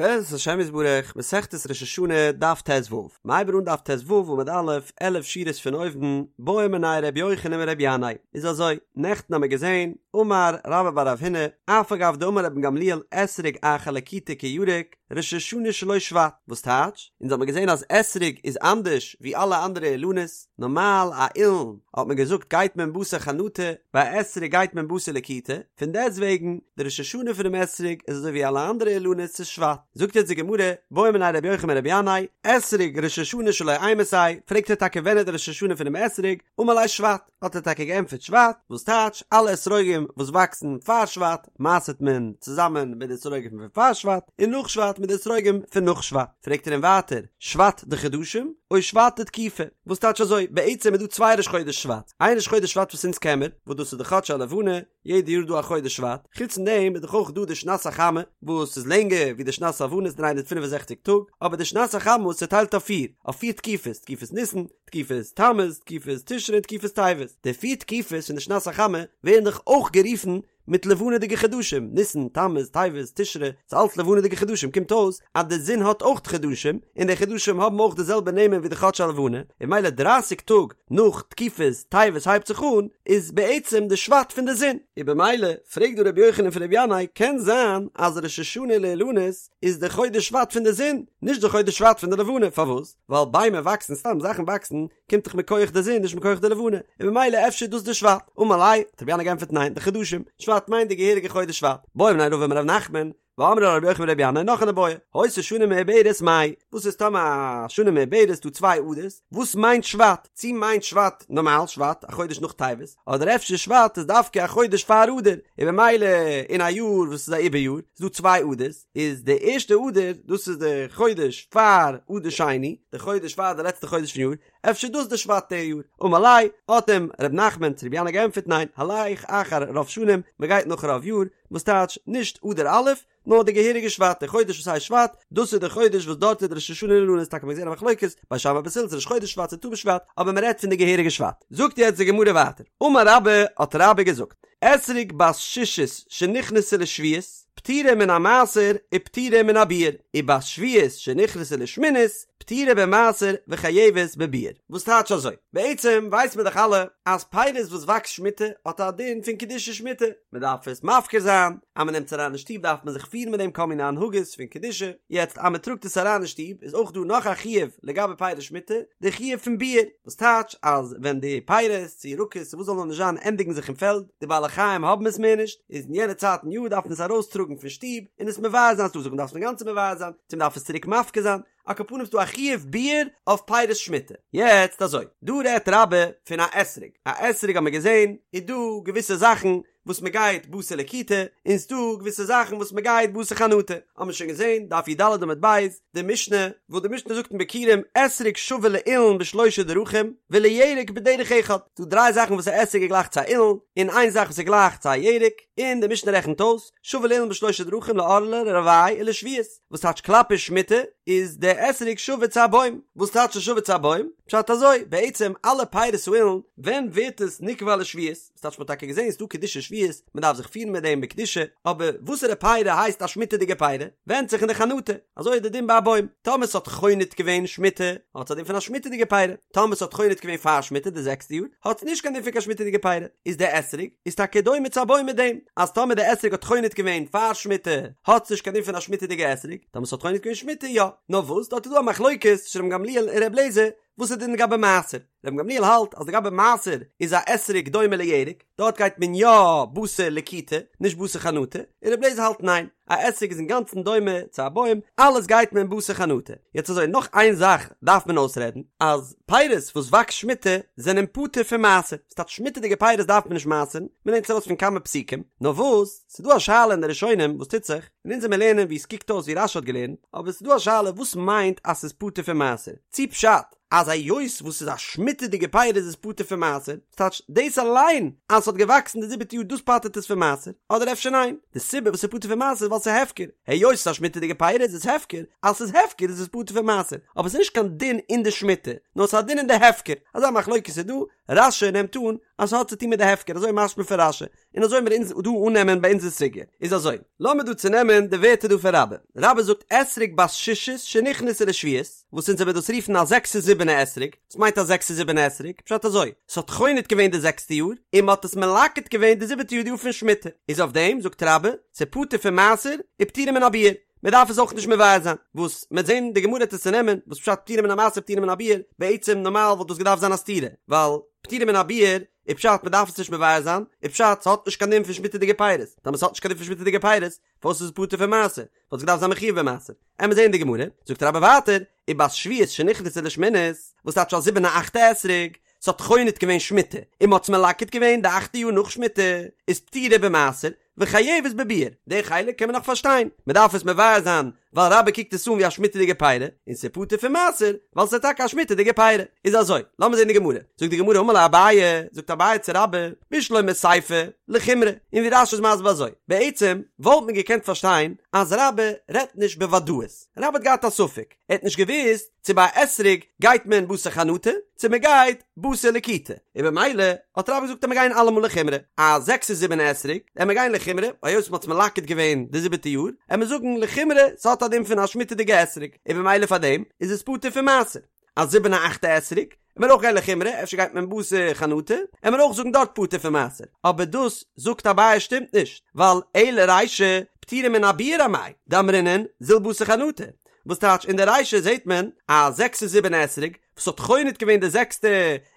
בעזרת השם יתברך, מסכת ראש השנה, דף ט"ו. מ'הייבט אן דף ט"ו עמוד א', עלף שורות פון אויבן, בעא מיניה ר' יוחנן מר' ינאי. איז אזוי, נעכטן האמיר געזען, אמר רבה בר רב הונא, אף על גב דאמר רבן גמליאל אתרוג אחר לקיטה כירק, ראש השנה שלו שבט. וואס טייטש? אונז האמיר געזען אז אתרוג איז אנדערש ווי אלע אנדערע אילנות, נארמאל א אילן האט מען געזאגט גייט מען בתר חנטה, ביי א אתרוג גייט מען בתר לקיטה, פון דעסט וועגן די ראש השנה פונעם אתרוג איז אזוי ווי אלע אנדערע אילנות ס'איז שבט. זאגט יעצט די גמרא, בעא מיניה רבי יוחנן מרבי ינאי, אתרוג ראש השנה שלו אימתי, פרעגט ער טאקע ווען איז די ראש השנה פונעם אתרוג, אמר ליה שבט, האט ער טאקע געענטפערט שבט, וואס טייטש אלע אתרוגים וואס וואקסן פאר שבט מעשר'ט מען צוזאמען מיט די אתרוגים פון פאר שבט, און נאך שבט מיט די אתרוגים פון נאך שבט. פרעגט ער אים ווייטער, שבט דחדשים או שבט דתקופה? וואס טייטש אזוי? בעצם איז דא צוויי ראש חודש שבט, איין ראש חודש שבט וואס אונז קען מיר, וואס דאס איז די חדשי הלבנה, יעדע יאר איז דא א חודש שבט, חוץ פון דעם איז דאך אויך דא די שנת החמה, וואס איז לענגער ווי די שנת הלבנה איז 365 טאג, אבער די שנת החמה איז צעטיילט אויף פיר, אויף פיר תקופות, תקופת ניסן, תקופת תמוז, תקופת תשרי און תקופת טבת. די פיר תקופות פון די שנת החמה ווערן דאך אויך גערופן מיט לבנה'דיגע חדשים, ניסן, תמוז, טבת, תשרי, ס'איז אלץ לבנה'דיגע חדשים, קומט אויס אז די זון האט אויך חדשים, און די חדשים האבן אויך די זעלבע נעמען ווי די חדשי הלבנה, און ממילא דרייסיג טאג נאך תקופת טבת הייבט זיך אן, איז בעצם די שבט פון די זון. און במילא פרעגט דא רבי יוחנן פון רבי ינאי, קען זיין אז ראש השנה לאילנות איז די חודש שבט פון די זון, נישט די חודש שבט פון די לבנה, פארוואס? ווייל ביימער וואקסן, סתם זאכן וואקסן, קומט דאך מכח די זון נישט מכח די לבנה, און ממילא אפשר איז דאס די שבט. אמר ליה, האט רבי ינאי געענטפערט ניין, דחדשים, שבט מיינט די געהעריגע חודש שבט. בעא מיניה רבא מרב נחמן, ואמרי לה רבי יוחנן ברבי ינאי נאך אן איבעיא, היתה שנה מעוברת מאי, וואס איז טאמער א שנה מעוברת דא צוויי אדר'ס, וואס מיינט שבט? צי מיינט שבט נארמאל שבט, א חודש נאך טבת, אדער אפשר שבט איז דווקא א חודש פאר אדר, און ממילא אין א יאר וואס איז א עיבור יאר, איז דא צוויי אדר'ס, איז די ערשטע אדר, דאס איז די חודש פאר אדר שני, די חודש פאר די לעצטע חודש פון יאר, אפשר דאס די שבט די יאר? אמר ליה, האט אים ר' נחמן צו רבי ינאי געענטפערט ניין, הלך אחר רוב שנים, מען גייט נאך רוב יאר, וואס טייטש נישט אדר א', נאר די געהעריגע שבט, די חודש וואס הייסט שבט, דאס איז די חודש וואס דארט איז די ראש השנה לאילנות, טאקע מ'האט געזען א מחלוקת, בית שמאי בית הלל צו ראש חודש שבט צו ט"ו בשבט, אבער מען רעדט פון די געהעריגע שבט. זאגט יעצט די גמרא ווייטער, אמר רבה, האט רבה געזאגט, אתרוג בת שישית שנכנסה לשביעית, פטורה מן המעשר ופטורה מן הביעור, ובת שביעית שנכנסה לשמינית, פטורה במעשר וחייבת בביעור. וואס טייטש אזוי? בעצם ווייסט מען דאך אלע אז פירות וואס וואקסט שמיטה האט א דין פון קדושת שמיטה, מען דארף עס מפקיר זיין, אז מען נעמט עס אריין אין שטוב דארף מען זיך פירן מיט דעם כל מיני הנהגות פון קדושה, יעצט אז מען טראגט עס אריין אין שטוב איז אויך דא נאך א חיוב לגבי פירות שמיטה, די חיוב פון ביעור, וואס טייטש אז ווען די פירות צו ירקות צו וואס זאל נאר נישט זיין ענדיגן זיך אין פעלד, די בעלי חיים האבן עס מער נישט, איז אין יענע צייט אין יאר דארף מען עס ארויסטראגן פון שטוב און עס מבער זיין, ס'דא זאגן דארף עס אינגאנצן מבער זיין, צו מ'דארף עס צוריק מפקיר זיין, על כל פנים ס'דא א חיוב ביעור אויף פירות שמיטה. יעצט אזוי, דא רעדט רבה פון א אתרוג, א אתרוג האט מען געזען איז דא געוויסע זאכן וואס מען גייט בתר לקיטה, און ס'דא געוויסע זאכן וואס מען גייט בתר חנטה, האט מען שוין געזען, דף י"ד עמוד ב', די משנה, וואס די משנה זאגט אין ביכורים, אתרוג שווה לאילן בשלושה דרכים, ולירק בדרך אחד, ס'דא דריי זאכן וואס א אתרוג איז גלייך צו א אילן, און איין זאך וואס איז גלייך צו א ירק, און די משנה רעכנט אויס, שווה לאילן בשלושה דרכים לערלה לרבעי ולשביעית, וואס טייטש כלפי שמיטה, איז די אתרוג שווה צו א בוים, וואס טייטש שווה צו א בוים? פשט אזוי, בעצם אלע פירות האילן, ווען ווערט עס נקבע לשביעית? ס'טייטש מ'האט טאקע געזען ס'דא קדושת שביעית, מ'דארף זיך פירן מיט דעם בקדושה, אבער וואסערע פירי הייסט א שמיטה'דיגע פירי? ווענדט זיך אין די חנטה, אזוי איז די דין ביי א בוים, טאמער ס'האט חונט געווען שמיטה, האט עס א דין פון א שמיטה'דיגע פירי, טאמער ס'האט חונט געווען פאר שמיטה די זעקסטע יאר, האט עס נישט קיין דין פון קיין שמיטה'דיגע פירי, איז די אתרוג איז טאקע דומה צו א בוים מיט דעם, אז טאמער די אתרוג האט חונט געווען פאר שמיטה, האט עס נישט קיין דין פון א שמיטה'דיגע אתרוג, טאמער ס'האט חונט געווען שמיטה יא, נאר וואס דארט איז דא א מחלוקת צווישן רבן גמליאל און ר' אליעזר, וואס איז די דין לגבי מעשר? רבן גמליאל האלט אז לגבי מעשר איז א אתרוג דומה לירק, דארט גייט מען יא בתר לקיטה, נישט בתר חנטה, און רבי אליעזר האלט ניין, א אתרוג איז אינגאנצן דומה צו א בוים, אלעס גייט מען בתר חנטה. יעצט אזוי, נאך איין זאך דארף מען אויסרעדן, אז פירות וואס וואקסט שמיטה זענען פטור פון מעשר, ס'טייטש שמיטה'דיגע פירות דארף מען נישט מעשר'ן, מ'לערנט עס ארויס פון כמה פסוקים, נאר וואס, ס'דא א שאלה אין די ראשונים וואס טוט זיך, און אונז וועמיר לערנען ווי עס קוקט אויס ווי רש"י האט געלערנט, אבער ס'איז דא א שאלה וואס מיינט אז ס'איז פטור פון מעשר, צי פשט אז היות וואס ס'איז א שמיטה'דיגע פירות איז עס פטור פון מעשר, ס'טייטש דאס אליין אז ס'האט געוואקסן די זיבעטע יאר דאס פטר'ט עס פון מעשר, אדער אפשר ניין, די סיבה וואס ס'איז פטור פון מעשר איז ווייל ס'איז הפקר, היות ס'איז א שמיטה'דיגע פירות איז עס הפקר, אז ס'איז הפקר איז עס פטור פון מעשר, אבער ס'איז נישט קיין דין אין די שמיטה, נאר ס'איז א דין אין די הפקר, אזא מחלוקת איז דא. רש"י נעמט אן אז ס'האט צו טון מיט די הפקר, אזוי משמע פון רש"י, און אזוי מיר אונז דא אננעמען ביי אונזער סוגיא. איז אזוי, לאמיר דא צונעמען די ווערטער דא פון רבה. רבה זאגט אתרוג בת שישית שנכנסה לשביעית, וואס אונז וועמיר דאס רופן א זעקסע זיבענע אתרוג, וואס מיינט א זעקסע זיבענע אתרוג? פשט אזוי, ס'האט חונט געווען די זעקסטע יאר, און מ'האט עס מלקט געווען די זיבעטע יאר די יאר פון שמיטה, איז אויף דעם זאגט רבה, ס'פטור פון מעשר, ופטורה מן הביעור, מ'דארף עס אויך נישט מבער זיין, וואס מ'עט זען די גמרא וועט עס צונעמען, וואס פשט פטורה מן המעשר פטורה מן הביעור, בעצם נארמאל וואלט דאס געדארפט זיין א סתירה, ווייל פטורה מן הביעור איז פשט מ'דארף עס נישט מבער זיין, איז פשט ס'האט נישט קיין דין פון שמיטה'דיגע פירות, טאמער ס'האט נישט קיין דין פון שמיטה'דיגע פירות, פארוואס איז עס פטור פון מעשר? וואלט עס געדארפט זיין מחויב במעשר. עמיר זעהן די גמרא, זאגט רבה ווייטער, ובת שביעית שנכנסה לשמינית, וואס טייטש א זיבענע אכטע אתרוג, ס'האט חונט געווען שמיטה, און מ'האט עס מלקט געווען די אכטע יאר נאך שמיטה, איז פטורה במעשר, וחייבת בביעור, די חלק קען מען נאך פארשטיין, מ'דארף עס מבער זיין, ווייל רבה קוקט עס אן ווי א שמיטה'דיגע פירי, און ס'איז פטור פון מעשר, ווייל ס'איז טאקע א שמיטה'דיגע פירי. איז אזוי, לאמיר זען די גמרא. זאגט די גמרא אמר ליה אביי, זאגט אביי צו רבה, בשלמא סיפא, לחומרא, און ווי רש"י איז מסביר אזוי, בעצם וואלט מען געקענט פארשטיין אז רבה רעדט נישט בוודאות, רבה האט געהאט א ספק, ער האט נישט געוואוסט צו ביי א אתרוג גייט מען בתר חנטה, צו מען גייט בתר לקיטה, און במילא האט רבה געזאגט אז מיר גייען אלעמאל לחומרא, א זעקסע זיבענע אתרוג, עמיר גיין לחומרא, היות מען האט עס מלקט געווען די זיבעטע יאר, עמיר זאגן לחומרא ס'האט א דין פון א שמיטה'דיגע אתרוג, און במילא פאר דעם איז עס פטור פון מעשר. א זיבענע אכטע אתרוג, עמיר אויך גיין לחומרא, אפשר גייט מען בתר חנטה, עמיר אויך זאגן דארט פטור פון מעשר, אבער דאס זאגט אביי שטימט נישט, ווייל אלא רישא פטורה מן הביעור אמאי, דאמרינן זיל בתר חנטה, וואס טייטש אין די רישא זעט מען א זעקסע זיבענע אתרוג וואס האט חונט געווען די זעקסטע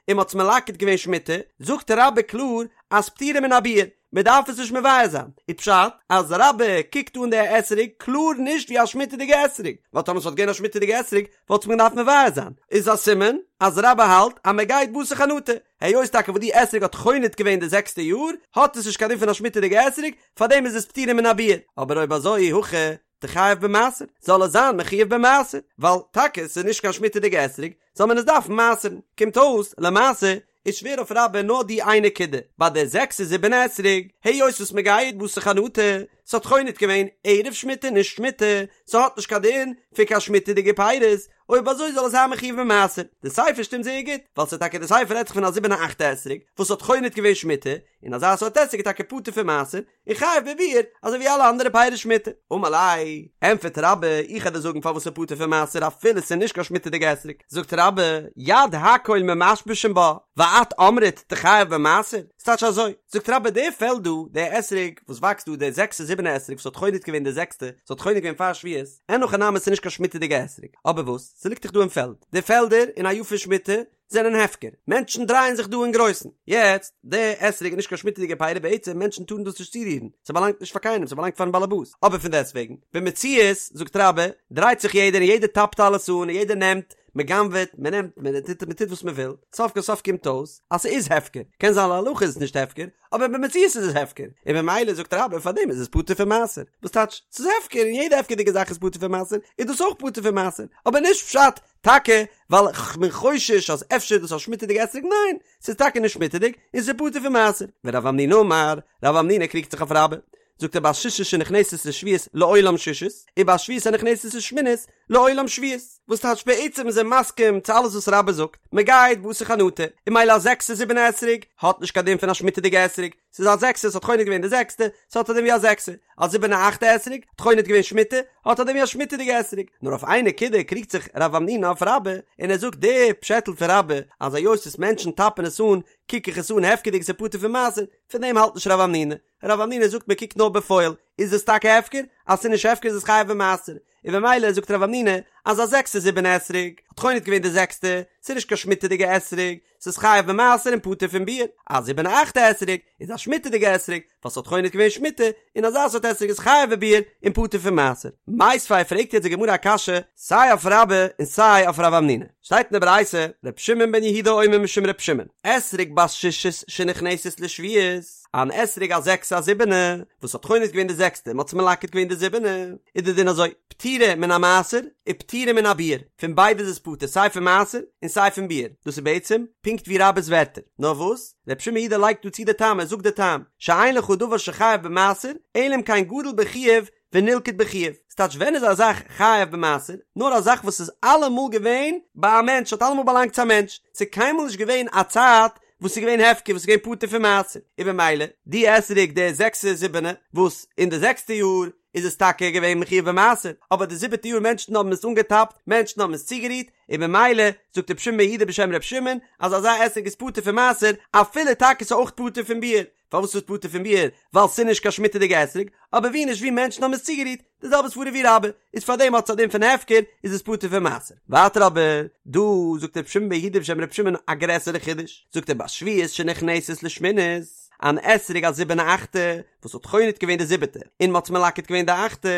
און מ'האט עס מלקט געווען שמיטה, זאגט רבה קלאר אז פטורה מן הביעור, מען דארף עס נישט מבער זיין, איז פשט אז רבה קוקט אן די אתרוג קלאר נישט ווי א שמיטה'דיגע אתרוג, ווייל טאמער ס'וואלט געווען א שמיטה'דיגע אתרוג וואלט מען געדארפט מבער זיין, איז א סימן אז רבה האלט אז מען גייט בתר חנטה, היות טאקע וואס די אתרוג האט חונט געווען די זעקסטע יאר האט עס נישט קיין דין פון א שמיטה'דיגע אתרוג, פארדעם איז עס פטורה מן הביעור, אבער אויב אזוי אי הכי תיחייב במעשר, זאל עס זיין מחויב במעשר, ווייל טאקע ס'איז נישט קיין שמיטה'דיגע אתרוג, זאל מען עס דארפן מעשר'ן. קומט אויס, למעשה, איז שווער אויף רבה נאר די איין נקודה, ביי די זעקסע זיבענע אתרוג, היות וואס מ'גייט בתר חנטה, ס'האט חונט געווען ערב שמיטה נישט שמיטה, ס'האט נישט קיין דין פון קיין שמיטה'דיגע פירות, אויב אזוי זאל עס זיין מחויב במעשר. די סיפא שטימט זייער גוט, ווייל ס'איז טאקע די סיפא רעדט זיך פון א זיבענע אכטע אתרוג, וואס האט חונט געווען שמיטה, און אזא סארט אתרוג איז טאקע פטור פון מעשר, און חייב בביעור, אזוי ווי אלע אנדערע פירות שמיטה. אמר ליה, ענטפערט רבה, איך וועל דיר זאגן פארוואס ס'איז פטור פון מעשר אפילו ס'איז נישט קיין שמיטה'דיגע אתרוג. זאגט רבה, יד הכל ממשמשין בה, ואת אמרת תיחייב במעשר? ס'טייטש אזוי, זאגט רבה, די פעלד דא, די אתרוג וואס וואקסט דא, די זעקסע זיבענע אתרוג וואס האט חונט געווען די זעקסטע, ס'האט חונט געווען פאר שביעית, אין הכי נמי ס'איז נישט קיין שמיטה'דיגע אתרוג. אבער וואס? ס'ליגט דאך דא אין פעלד. די פעלדער אין א יאר פון שמיטה, זענען הפקר, מענטשן דרייען זיך דא אין גרויסן, יעצט, די אתרוג איז נישט קיין שמיטה'דיגע פירי בעצם מענטשן טארן דאס נישט צורירן, ס'באלאנגט נישט פאר קיינעם ס'באלאנגט פארן באלעבאס, אבער פון דעסטוועגן, במציאות, זאגט רבה, דרייט זיך יעדער און יעדער טאפט אלעס אן און יעדער נעמט, מ'גנב'עט, מ'נעמט, מ'טוט מ'טוט וואס מ'וויל, סוף כל סוף קומט אויס אז ס'איז הפקר, קען זיין להלכה איז עס נישט הפקר, אבער במציאות איז עס הפקר, און במילא זאגט רבה פארדעם איז עס פטור פון מעשר, וואס טייטש, ס'איז הפקר און יעדע הפקר'דיגע זאך איז פטור פון מעשר, איז דאס אויך פטור פון מעשר, אבער נישט פשט טאקע ווייל כ'בין חושש אז אפשר איז דאס א שמיטה'דיגע אתרוג, ניין, ס'איז טאקע נישט שמיטה'דיג און ס'איז פטור פון מעשר. ורב המנונא אמר, רב המנונא קריגט זיך אויף רבה, זאגט ער בת שישית שנכנסת לשביעית לעולם שישית, ובת שביעית הנכנסת לשמינית לעולם שביעית, וואס טייטש בעצם איז ער מסכים צו אלעס וואס רבה זאגט, מ'גייט בתר חנטה, און ממילא א זעקסע זיבענע אתרוג האט נישט קיין דין פון א שמיטה'דיגע אתרוג, ס'איז א זעקסע, ס'האט חונט געווען די זעקסטע, ס'האט א דין ווי א זעקסע. א זיבענע אכטע אתרוג, האט חונט געווען שמיטה, האט א דין ווי א שמיטה'דיגע אתרוג. נאר אויף איין נקודה קריגט זיך רב המנונא אויף רבה, און ער זאגט די פשעטל פון רבה, אז היות וואס מענטשן טאפן עס אן, קוק איך עס אן הפקר'דיג ס'איז פטור פון מעשר, פון דעם האלט נישט רב המנונא. רב המנונא זאגט מען קוקט נאר בפועל, איז עס טאקע הפקר? אז ס'איז נישט הפקר איז עס חייב במעשר. און במילא זאגט רב המנונא אז א זעקסע זיבענע אתרוג האט חונט געווען די זעקסטע, ס'איז נישט קיין שמיטה'דיגע אתרוג, ס'איז חייב במעשר און פטור פון ביעור, א זיבענע אכטע אתרוג איז א שמיטה'דיגע אתרוג ווייל ס'האט חונט געווען שמיטה, און אזא סארט אתרוג איז חייב בביעור און פטור פון מעשר. מיתיבי פרעגט יעצט די גמרא א קשיא סיי אויף רבה און סיי אויף רב המנונא. שטייט אין די ברייתא, ר' שמעון בן יהודה אומר משום ר' שמעון, אתרוג בת שישית שנכנסת לשביעית, אן אתרוג א זעקסע א זיבענע, וואס האט חונט געווען די זעקסטע און מ'האט עס מלקט געווען די זיבענע, איז די דין אזוי, פטורה מן המעשר ופטורה מן הביעור, פון ביידע איז עס פטור סיי פון מעשר און סיי פון ביעור, דאס איז בעצם פונקט ווי רבה'ס ווערטער, נאר וואס ר' שמעון יהודה לייגט דא צו די טעם, ער זאגט די טעם, שאין לך דבר שחייב במעשר, אלא אם כן גדל בחיוב ונלקט בחיוב, ס'טייטש ווען איז א זאך חייב במעשר? נאר א זאך וואס איז אלעמאל געווען ביי א מענטש, האט אלעמאל באלאנגט צו א מענטש, ס'איז קיינמאל נישט געווען א צייט. וואס איז געווען הפקר וואס איז געווען פטור פון מעשר, און במילא די אתרוג די זעקסע זיבענע וואס אין די זעקסטע יאר איז עס טאקע געווען מחויב במעשר, אבער די זיבעטע יאר מענטשן האבן עס אנגעטאפט, מענטשן האבן עס צוגערירט, און במילא זאגט רבי שמעון בן יהודה בשם רבי שמעון אז אזא אתרוג איז פטור פון מעשר אפילו טאקע ס'איז אויך פטור פון ביעור, פארוואס איז עס פטור פון ביעור? ווייל ס'איז נישט קיין שמיטה'דיגע אתרוג, אבער ווי נישט ווי מענטשן האבן עס צוגערירט, די זעלבע סברא ווי רבה, איז פארדעם האט עס א דין פון הפקר, איז עס פטור פון מעשר. ווייטער אבער, דא זאגט רבי שמעון בן יהודה בשם רבי שמעון א גרעסערע חידוש, זאגט ער בשביעית שנכנסת לשמינית, אן אתרוג א זיבענע אכטע, וואס האט חונט געווען די זיבעטע, און מ'האט עס מלקט געווען די אכטע,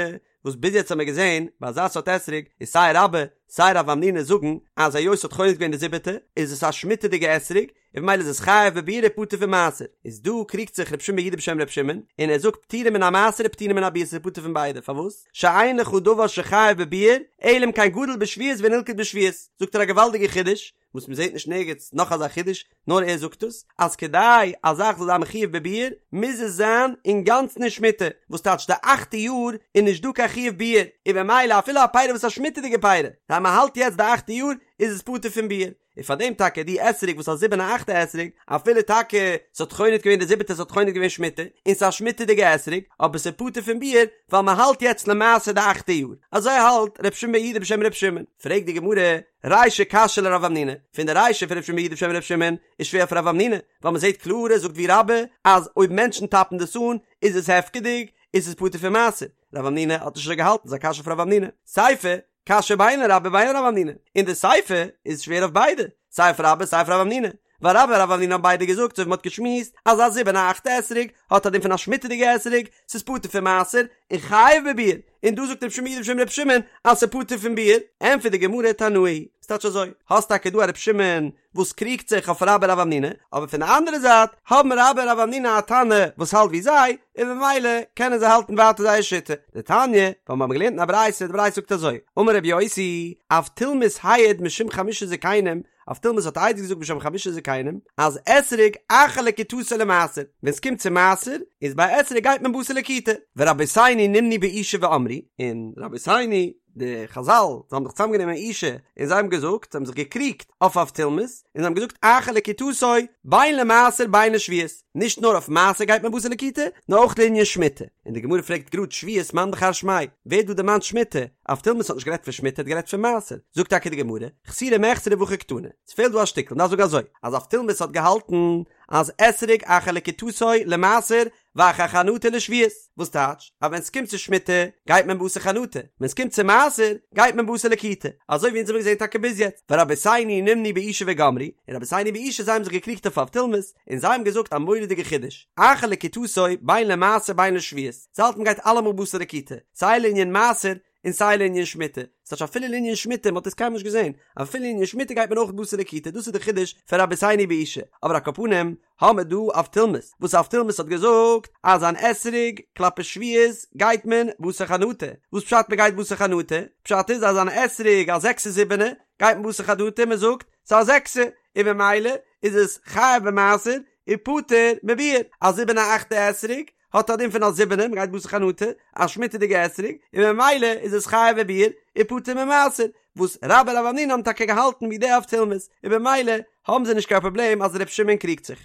וואס ביז יעצט האבן מיר געזען ביי אזא סארט אתרוג איז סיי רבה סיי רב המנונא זאגן אז היות ס'האט חונט געווען די זיבעטע איז עס א שמיטה'דיגע אתרוג און במילא איז עס חייב בביעור און פטור פון מעשר איז דא קריגט זיך רבי שמעון בן יהודה בשם רבי שמעון און ער זאגט פטורה מן המעשר ופטורה מן הביעור ס'איז פטור פון ביידע פארוואס שאין לך דבר שחייב בביעור אלא אם כן גדל בשביעית ונלקט בשביעית זאגט ער א געוואלדיגע חידוש וואס מען זעט נישט נערגעץ נאך אזא חידוש, נאר ער זאגט עס, אז כדי א זאך זאל זיין מחויב בביעור, מוז עס זיין אינגאנצן אין שמיטה, וואס טייטש די אכטע יאר איז נישט דא קיין חיוב ביעור, און במילא אפילו א פירא וואס איז א שמיטה'דיגע פירא, אז מען האלט יעצט די אכטע יאר, איז עס פטור פון ביעור. און פאר דעם טאקע די אתרוג וואס א זיבענע אכטע אתרוג, אפילו טאקע ס'האט חונט געווען די זיבעטע ס'האט חונט געווען שמיטה, און ס'איז א שמיטה'דיגע אתרוג, אבער ס'איז פטור פון ביעור, ווייל מען האלט יעצט למעשה די אכטע יאר. אזוי האלט ר' שמעון בן יהודה בשם ר' שמעון. פרעגט די גמרא, רישא קשיא לרב המנונא, פון די רישא פון ר' שמעון בן יהודה בשם ר' שמעון איז שווער אויף רב המנונא, ווייל מען זעט קלאר ער זאגט ווי רבה אז אויב מענטשן טאפן דאס אן איז עס הפקר'דיג, איז עס פטור פון מעשר, רב המנונא האט נישט אזוי געהאלטן, ס'איז א קשיא אויף רב המנונא. סיפא, קשיא בין לרבה בין לרב המנונא, און די סיפא איז שווער אויף ביידע, סיי אויף רבה סיי אויף רב המנונא, ווייל רבה און רב המנונא האבן ביידע געזאגט אזוי ווי מ'האט געשמועסט אז א זיבענע אכטע אתרוג האט א דין פון א שמיטה'דיגע אתרוג, ס'איז פטור פון מעשר און חייב בביעור, און דא זאגט רבי שמעון בן יהודה בשם רבי שמעון אז ס'איז פטור פון ביעור, ענטפערט די גמרא תנאי היא, ס'טייטש אזוי, האסט טאקע דא א רבי שמעון וואס קריגט זיך אויף רבה און רב המנונא, אבער פון די אנדערע זייט האבן רבה און רב המנונא א תנא וואס האלט ווי זיי, און במילא קענען זיי האלטן ווייטער זייער שיטה. דתניא, ווייל מיר האבן געלערנט אין א ברייתא, די ברייתא זאגט אזוי, אמר רבי יוסי, אבטולמוס העיד משום חמשה זקנים, אבטולמוס האט עדות געזאגט בשם חמשה זקנים אז אתרוג אחר לקיטתו למעשר, ווען ס'קומט צו מעשר איז ביי אתרוג גייט מען בתר לקיטה, ורבותינו נמנו באושא ואמרו, און רבותינו די חזל זיי האבן זיך צוזאם גענומען אין אושא און זיי האבן געזאגט, זיי האבן זיך געקריגט אויף אבטולמוס, און זיי האבן געזאגט אחר לקיטתו בין למעשר בין לשביעית, נישט נאר אויף מעשר גייט מען בתר לקיטה, נאר אויך לענין שמיטה, און די גמרא פרעגט גראד שביעית מאן דכר שמיה, ווער האט דא דערמאנט שמיטה? אבטולמוס האט נישט גערעדט פון שמיטה ער האט גערעדט פון מעשר, זאגט טאקע די גמרא, חסורי מחסרא והכי קתני, ס'פעלט דא א שטיקל, מ'דארף זאגן אזוי, אז אבטולמוס האט געהאלטן אז אתרוג אחר לקיטתו למעשר ואחר חנטה לשביעית, וואס טייטש אז ווען ס'קומט צו שמיטה גייט מען בתר חנטה, ווען ס'קומט צו מעשר גייט מען בתר לקיטה, אזוי ווי אונז האבן געזען טאקע ביז יעצט, ורבותינו נמנו באושא וגמרו, און רבותינו באושא זיי האבן זיך געקריגט אויף אבטולמוס, און זיי האבן געזאגט א מורא'דיגע חידוש, אחר לקיטתו בין למעשר בין לשביעית, זיי האלטן מ'גייט אלעמאל בתר לקיטה, סיי לענין מעשר און סיי לענין שמיטה, ס'טייטש אפילו לענין שמיטה, מ'האט עס קיינמאל נישט געזען, אפילו לענין שמיטה גייט מען אויך בתר לקיטה, דאס איז די חידוש פון רבותינו באושא, אבער על כל פנים האמער דא אבטולמוס, וואס אבטולמוס האט געזאגט אז אן אתרוג כלפי שביעית גייט מען בתר חנטה, וואס פשט מ'גייט בתר חנטה? פשט איז אז אן אתרוג א זעקסע זיבענע גייט מען בתר חנטה, מ'זאגט ס'איז א זעקסע, און ממילא איז עס חייב במעשר און פטור מביעור, א זיבענע אכטע אתרוג האט א דין פון א זיבענע, מ'גייט בתר חנטה, א שמיטה'דיגע אתרוג, און ממילא איז עס חייב בביעור און פטור ממעשר, וואס רבה און רב המנונא האבן טאקע געהאלטן ווי די אבטולמוס, און במילא האבן זיי נישט קיין פראבלעם אז ר' שמעון קריגט זיך.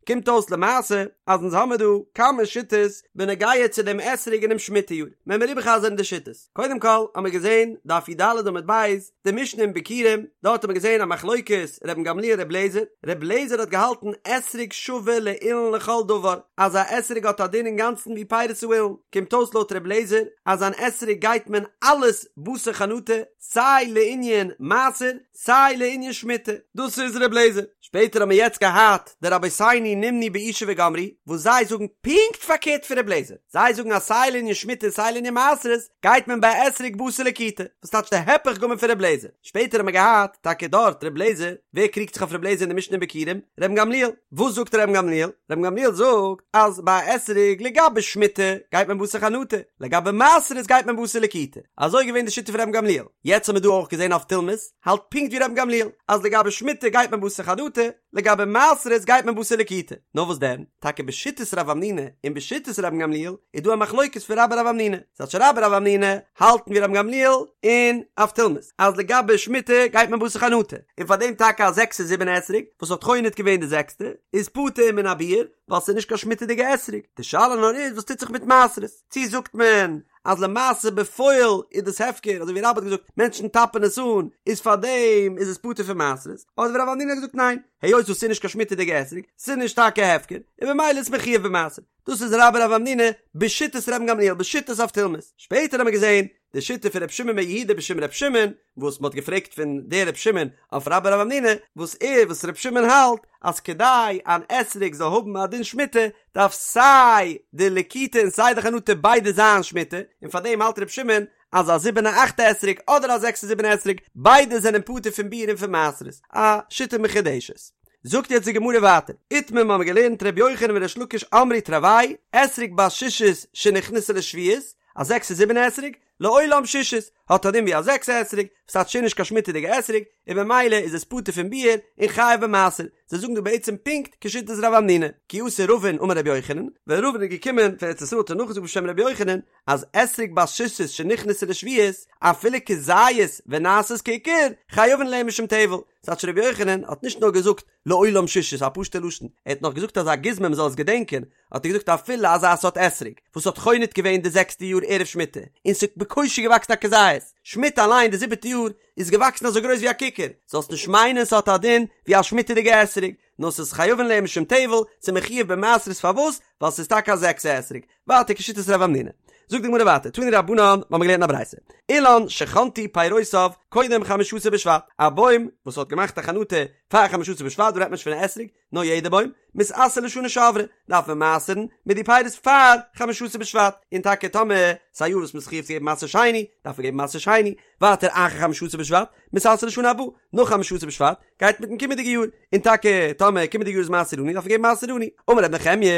קומט אויס למעשה אז אונז האמיר דא כמה שיטות בנוגע צו דעם אתרוג אינעם שמיטה יאר, וועלן מיר איבערחזר'ן די שיטות. קודם כל האמיר געזען דף י"ד עמוד ב', די משנה אין ביכורים, דארט האט מען געזען א מחלוקת רבן גמליאל ר' לעזער, ר' לעזער האט געהאלטן אתרוג שווה לאילן לכל דבר, אז א אתרוג האט א דין אינגאנצן ווי פירות האילן, קומט אויס לויט ר' לעזער אז אן אתרוג גייט מען אלעס בתר חנטה, סיי לענין מעשר סיי לענין שמיטה, דאס איז ר' לעזער. שפעטער האט מען יעצט געהאט די רבותינו נמנו באושא וגמרו, וואס זיי זאגן פונקט פארקערט פון ר' לעזער, זיי זאגן אז סיי לענין שמיטה און סיי לענין מעשרות גייט מען ביי אתרוג בתר לקיטה, וואס טייטש די הפך גמור פון ר' לעזער. שפעטער האט מען געהאט טאקע דארט ר' לעזער, ווער קריגט זיך אויף ר' לעזער אין די משנה אין ביכורים? רבן גמליאל. וואס זאגט רבן גמליאל? רבן גמליאל זאגט אז ביי אתרוג לגבי שמיטה גייט מען בתר חנטה, לגבי מעשרות גייט מען בתר לקיטה. אזוי איז געווען די שיטה פון רבן גמליאל. יעצט האט מען דא אויך געזען אבטולמוס האלט פונקט ווי רבן גמליאל אז לגבי שמיטה גייט מען בתר חנטה, לגבי מעשרות גייט מען בתר לקיטה. לקיטה. נאר וואס דען, טאקע בשיטת רב המנונא און בשיטת רבן גמליאל איז דא א מחלוקת פון רבה רב המנונא, ס'טייטש רבה רב המנונא האלטן ווי רבן גמליאל און אבטולמוס אז לגבי שמיטה גייט מען בתר חנטה, און פאר דעם טאקע א זעקסע זיבענע אתרוג וואס האט חונט געווען די זעקסטע איז פטור מן הביעור ווייל ס'איז נישט קיין שמיטה'דיגע אתרוג, די שאלה נאר איז וואס טוט זיך מיט מעשרות, צי זאגט מען אז למעשה בפועל איז דאס הפקר אזוי ווי רבה האט געזאגט מענטשן טאפען עס אן איז פאר דעם איז עס פטור פון מעשרות, אדער ווי רב המנונא האט געזאגט ניין היות וואס ס'איז נישט קיין שמיטה'דיגע אתרוג ס'איז נישט טאקע הפקר און במילא איז מחויב במעשר. דאס איז רבה רב המנונא בשיטת רבן גמליאל בשיטת אבטולמוס, שפעטער האט מען געזען די שיטה פון ר' שמעון בן יהודה בשם ר' שמעון, וואס מען האט געפרעגט פון דער ר' שמעון אויף רבה רב המנונא, וואס ער וואס ר' שמעון האלט אז כדי אן אתרוג זאל האבן א דין שמיטה דארף סיי די לקיטה און סיי די חנטה ביידע זיין שמיטה, און פאר דעם האלט ר' שמעון אז א זיבענע אכטע אתרוג אדער א זעקסע זיבענע אתרוג ביידע זענען פטור פון ביעור און פון מעשרות, א שיטה מחודשת. זאגט יעצט די גמרא ווייטער, איתמר מ'האמיר געלערנט ר' יוחנן וריש לקיש אמרי תרוייהו, אתרוג בת שישית שנכנסה לשביעית, א זעקסע זיבענע אתרוג, לעולם שישית, האט א דין ווי א זעקסע אתרוג, וואס טייטש נישט קיין שמיטה'דיגע אתרוג, און במילא איז עס פטור פון ביעור און חייב במעשר, זיי זאגן דא בעצם פונקט כשיטת רב המנונא, כי אתא רבין אמר רבי יוחנן, ווען רבין איז געקומען פון ארץ ישראל האט ער נאכגעזאגט בשם רבי יוחנן, אז אתרוג בת שישית שנכנסה לשביעית, אפילו כזית ונעשית ככר, חייבין עליה משום טבל, ס'טייטש רבי יוחנן האט נישט נאר געזאגט לעולם שישית א פשוטע לשון, ער האט נאך געזאגט אזא גוזמא מ'זאל עס געדענקען, האט ער געזאגט אפילו אזא סארט אתרוג וואס האט חונט געווען די זעקסטע יאר ערב שמיטה, און ס'האט בקושי געוואקסן א כזית, שמיטה אליין די זיבעטע יאר איז געוואקסן אזוי גרויס ווי א ככר, זאלסט נישט מיינען ס'האט א דין ווי א שמיטה'דיגע אתרוג, נאר ס'איז חייבין עליה משום טבל, ס'איז מחויב במעשרות פארוואס? ווייל ס'איז טאקע א זעקסע אתרוג, ווייטער כשיטת רב המנונא. זאגט די גמרא ווייטער, תנו רבנן, מ'האמיר געלערנט א ברייתא, אילן שחנטו פירותיו קודם חמשה עשר בשבט, א בוים וואס האט געמאכט א חנטה פאר חמשה עשר בשבט, דא רעדט מען נישט פון א אתרוג, נאר יעדע בוים, מתעשר לשנה שעברה, דארף מען מעשר'ן מיט די פירות פאר חמשה עשר בשבט, און טאקע טאמער ס'איז א יאר וואס מ'איז חייב צו געבן מעשר שני, דארף מען געבן מעשר שני, ווייטער אחר חמשה עשר בשבט, מתעשר לשנה הבאה, נאך חמשה עשר בשבט, גייט מיטן קומענדיגע יאר, און טאקע טאמער קומענדיגע יאר איז מעשר עני דארף מען געבן מעשר עני. אמר ר' נחמיה,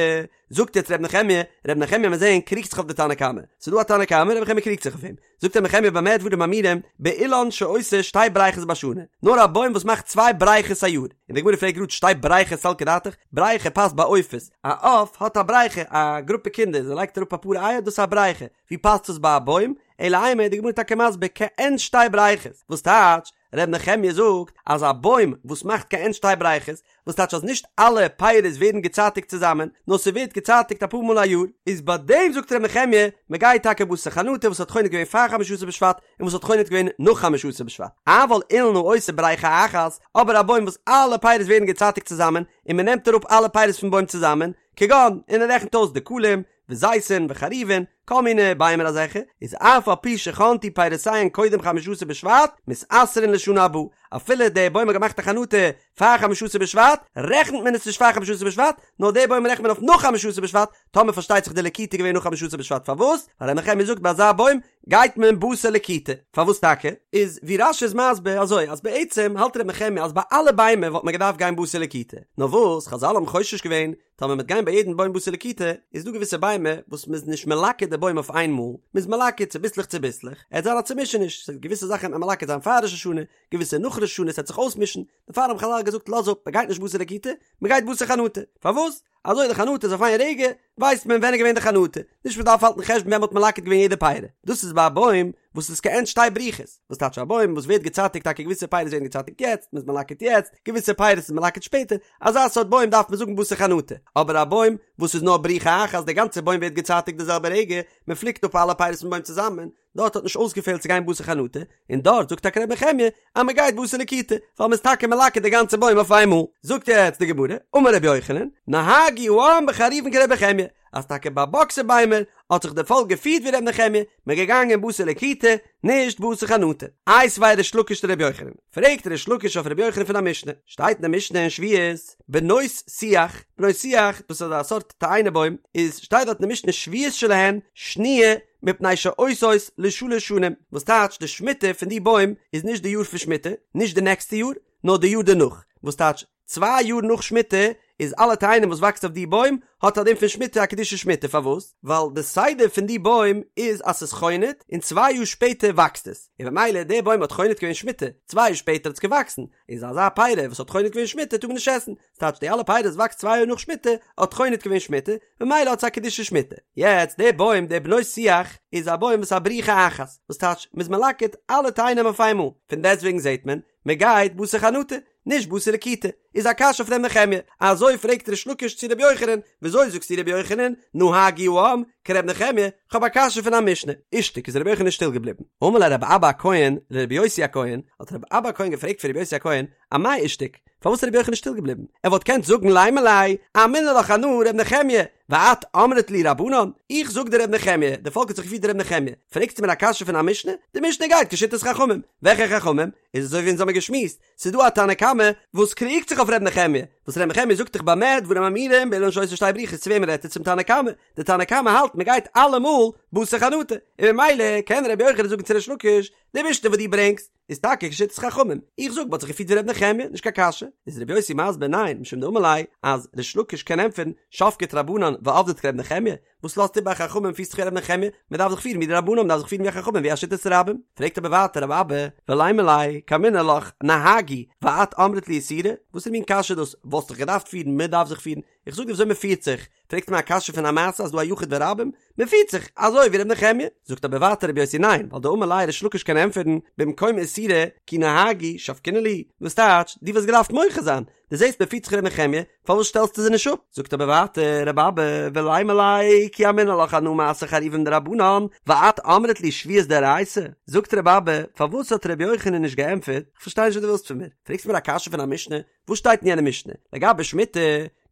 זאגט יעצט ר' נחמיה, ר' נחמיה מיר זעהן קריגט זיך אויף די תנא קמא, ס'איז דא א תנא קמא ר' נחמיה קריגט זיך אויף אים, זאגט ר' נחמיה במה דברים אמורים, באילן שעושה שתי בריכות בשנה, נאר א בוים וואס מאכט צוויי בריכות א יאר, און די גמרא פרעגט גראד שתי בריכות סלקא דעתך, בריכה פאסט ביי עופות, א עוף האט א בריכה, א גרופע קינדער, זיי לייגט אראפ אפאר אייער דאס איז א בריכה, ווי פאסט עס ביי א בוים? אלא אימא איז די גמרא טאקע מסביר כעין שתי בריכות, וואס טייטש, ר' נחמיה זאגט אז א בוים וואס מאכט כעין שתי בריכות, וואס טייטש אז נישט אלע פירות ווערן געצייטיגט צוזאמען, נאר ס'ווערט געצייטיגט אפאר מאל א יאר, איז ביי דעם זאגט ר' נחמיה, מ'גייט טאקע בתר חנטה וואס האט חונט געווען פאר חמשה עשר בשבט און וואס האט חונט געווען נאך חמשה עשר בשבט, אבל אילן העושה בריכה אחת, אבער א בוים וואס אלע פירות ווערן געצייטיגט צוזאמען, און מ'נעמט אראפ אלע פירות פון בוים צוזאמען, כגון, און ער רעכנט אויס דקלים, וזיתים וחרובין, כל מיני ביימער אזעלכע, איז אף על פי שחנטו פירותיהן קודם חמשה עשר בשבט, מתעשרין לשנה הבאה, אפילו דער בוים האט געמאכט א חנטה פאר חמשה עשר בשבט, רעכנט מען עס נישט פאר חמשה עשר בשבט, נאר דער בוים רעכנט מען אויף נאך חמשה עשר בשבט, טאמער פארשטייט זיך די לקיטה איז געווען נאך חמשה עשר בשבט, פארוואס? ווייל ר' נחמיה זאגט ביי אזא בוים גייט מען בתר לקיטה, פארוואס טאקע? איז ווי רש"י איז מסביר אזוי אז בעצם האלט ר' נחמיה אז ביי אלע ביימער וואלט מען געדארפט גיין בתר לקיטה, נאר וואס חזל האבן חושש געווען טאמער מ'וועט גיין ביי יעדן בוים בתר לקיטה, איז דא געוויסע ביימער וואס מ'איז נישט מלקט די בוים אויף איין מאל, מ'איז מלקט צוביסלעך צוביסלעך, עט זיין א צומישעניש, ס'וועט געוויסע זאכן וועט מען מלקט זיין פאר ראש השנה, געוויסע נאך ראש השנה, ס'וועט זיך אויסמישן, דערפאר האבן חזל געזאגט לאז אפ, מ'גייט נישט בתר לקיטה, מ'גייט בתר חנטה, פארוואס? אזוי די חנטה איז אויף איין רגע, ווייסט מען ווען איז געווען די חנטה, נישט מ'דארף האלטן חשבון ווען מ'האט מלקט געווען יעדע פרי, דאס איז ביי א בוים וואס איז כעין שתי בריכות, וואס טייטש א בוים וואס ווערט געצייטיגט טאקע געוויסע פירות ווערן געצייטיגט יעצט, מ'איז מלקט יעצט, געוויסע פירות איז מלקט שפעטער, אזא סארט בוים דארף מען זאגן בתר חנטה, אבער א בוים וואס איז נאר בריכה אחת די גאנצע בוים ווערט געצייטיגט די זעלבע רגע, מען פליקט אפ אלע פירות פון בוים צוזאמען, דארט האט נישט אויסגעפעלט צו גיין בתר חנטה, און דארט זאגט טאקע ר' נחמיה אז מען גייט בתר לקיטה, ווייל מען איז טאקע מלקט די גאנצע בוים אויף איינמאל. זאגט יעצט די גמרא, אמר רבי יוחנן, נהגו העם בחרובין כר' נחמיה, אז טאקע ביי באקסער ביימער האט זיך די פאלק געפירט ווי ר' נחמיה, מען געגאנגען בתר לקיטה, נישט בתר חנטה. איתיביה ריש לקיש לר' יוחנן, פרעגט ריש לקיש אויף ר' יוחנן פון א משנה, שטייט אין די משנה אין שביעית, בנות שיח, בנות שיח, דאס איז א סארט תאנה בוים, איז שטייט דארט אין די משנה שביעית שלהן שניה מפני שעושות לשלש שנים, וואס טייטש די שמיטה פון די בוים איז נישט די יאר פון שמיטה, נישט די נעקסטע יאר, נאר די יאר דערנאך, וואס טייטש צוויי יאר נאך שמיטה. איז אלע תאנים וואס וואקסט אויף די בוים האט א דין פון שמיטה א קדושת שמיטה פארוואס? ווייל די סדר פון די בוים איז אז ס'איז חונט און צוויי יאר שפעטער וואקסט עס און במילא די בוים האט חונט געווען שמיטה צוויי יאר שפעטער האט עס געוואקסן איז אזא פירי וואס האט חונט געווען שמיטה טאר מען נישט עסן ס'טייטש די אלע פירות וואס וואקסט צוויי יאר נאך שמיטה האט חונט געווען שמיטה ממילא האט עס א קדושת שמיטה. יעצט די בוים די בנות שיח איז א בוים וואס א בריחה אחת וואס טייטש מ'איז מלקט אלע תאנים אויף איינמאל פון דעסטוועגן זעט מען מ'גייט בתר חנטה נישט בתר לקיטה איז א קשיא אויף ר' נחמיה אזוי פרעגט ריש לקיש צו ר' יוחנן וויאזוי זאגסטו ר' יוחנן נהגו העם כר' נחמיה כ'האב א קשיא פון א משנה אישתיק איז ר' יוחנן שטיל געבליבן אמר ליה רבי אבא הכהן לרבי יוסי הכהן האט רבי אבא הכהן געפרעגט פון רבי יוסי הכהן אמאי אישתיק פארוואס איז רבי יוחנן שטיל געבליבן? ער וואלט געקענט זאגן לימא ליה, אמינא לך אנא ר' נחמיה, ואת אמרת לי רבנן, איך זאג דיר ר' נחמיה, די פאלק האט זיך געפירט ווי ר' נחמיה, פרעגסטו מיר א קשיא פון א משנה? די משנה גייט כשיטת חכמים, וועלכע חכמים? איז אזוי ווי אונז האמיר געשמועסט, ס'איז דא א תנא קמא וואס קריגט זיך אויף ר' נחמיה, וואס ר' נחמיה זאגט דאך במה דברים אמורים באילן שעושה שתי בריחות צו וועמען רעדט ער צום תנא קמא? די תנא קמא האלט מען גייט אלעמאל בתר חנטה, און ממילא קען ר' יוחנן זאגן צו ריש לקיש, די משנה וואס דו ברענגסט, איז טאקע כשיטת חכמים, איך זאג מ'האט זיך געפירט ווי ר' נחמיה, נישט קיין קשיא, איז ר' יוסי מסביר ניין, משום דאמר ליה, אז ריש לקיש קען ענטפערן, שבקת רבנן ועבדת כר' נחמיה, וואס לאזט איבער חכמים פירסט זיך ווי ר' נחמיה, מען דארף זיך פירן ווי די רבנן, מען דארף זיך פירן ווי חכמים ווי א שיטת רבים, פרעגט אבער ווייטער רבי אבא, ולימא ליה, קאמינא לך, נהגו, ואת אמרת לי איסורא, וואסערע מין קשיא איז דאס, וואלסט דיך געדארפט פירן, מען דארף זיך פירן, איך זאג דיר וויאזוי מען פירט זיך, פרעגסט מיר א קשיא פון א מעשה אז דא א יחיד ורבים, מען פירט זיך אזוי ווי ר' נחמיה, זאגט אבער ווייטער רבי יוסי ניין, ווייל דאמר ליה ריש לקיש קען ענטפערן במקום איסורא כי נהגו שבקינן להו, וואס טייטש, דו וואלסט געדארפט מוחה זיין, דו זעסט מען פירט זיך ר' נחמיה, פארוואס שטעלסטו זיי נישט אפ? זאגט אבער ווייטער רבי אבא ולימא ליה כי אמינא לך אנא מעשר חרובין דרבנן, ואת אמרת לי שביעית דאורייתא, זאגט רבי אבא פארוואס האט רבי יוחנן נישט געענטפערט, כ'פארשטיי נישט וואס דו ווילסט פון מיר, פרעגסט מיר א קשיא פון א משנה, וואס שטייט אין יענע משנה? לגבי שמיטה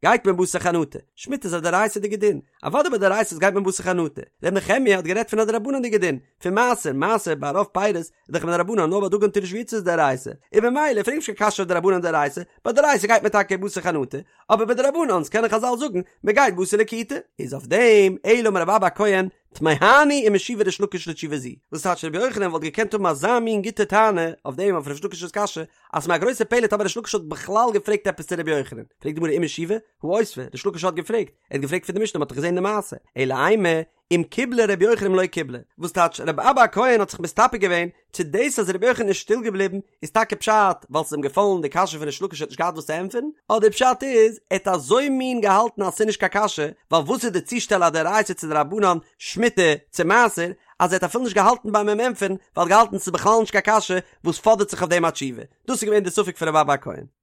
גייט מען בתר חנטה, שמיטה איז א דאורייתא'דיגע דין, אוודאי ביי דאורייתא'ס גייט מען בתר חנטה, ר' נחמיה האט גערעדט פון א דרבנן'דיגע דין, פון מעשר, מעשר ביי רוב פירות איז דאך מדרבנן נאר ביי דגן תירוש ויצהר איז דאורייתא, און במילא פרעג נישט קיין קשיא אויף דרבנן דאורייתא, ביי דאורייתא גייט מען טאקע בתר חנטה, אבער ביי דרבנן'ס קענען חזל זאגן מען גייט בתר לקיטה, איז אויף דעם אלא אמר רבי אבא הכהן תמהני אם השיבה ריש לקיש לתשובה זו, וואס טייטש רבי יוחנן וואלט געקענט האבן אזא מין גוטע טענה אויף דעם אויף ריש לקיש'ס קשיא, אז ס'איז מיר א גרויסע פלא טאמער ריש לקיש האט בכלל געפרעגט עפעס צו רבי יוחנן, פרעגט די גמרא אם השיבה, הא אותבה, ריש לקיש האט געפרעגט, ער האט געפרעגט פון די משנה מ'האט דאך געזען די מעשה, אלא אימא, אם קיבלה רבי יוחנן אם לא קיבלה, וואס טייטש רבי אבא הכהן האט זיך מסתפק געווען צו דאס אז רבי יוחנן איז שטיל געבליבן איז טאקע פשט ווייל ס'איז אים געפאלן די קשיא פון ריש לקיש ער האט נישט געהאט וואס צו ענטפערן, אדער פשט איז ער האט אזוי מין געהאלטן אז ס'איז נישט קיין קשיא, ווייל וואס איז די צושטעל א דאורייתא צו דרבנן, שמיטה צו מעשר, אז ער האט אפילו נישט געהאלטן ביים אים ענטפערן, ווייל ער האט געהאלטן ס'איז בכלל נישט קיין קשיא וואס פאדערט זיך אויף דעם א תשובה. דאס איז געווען די ספק פון רבי אבא הכהן.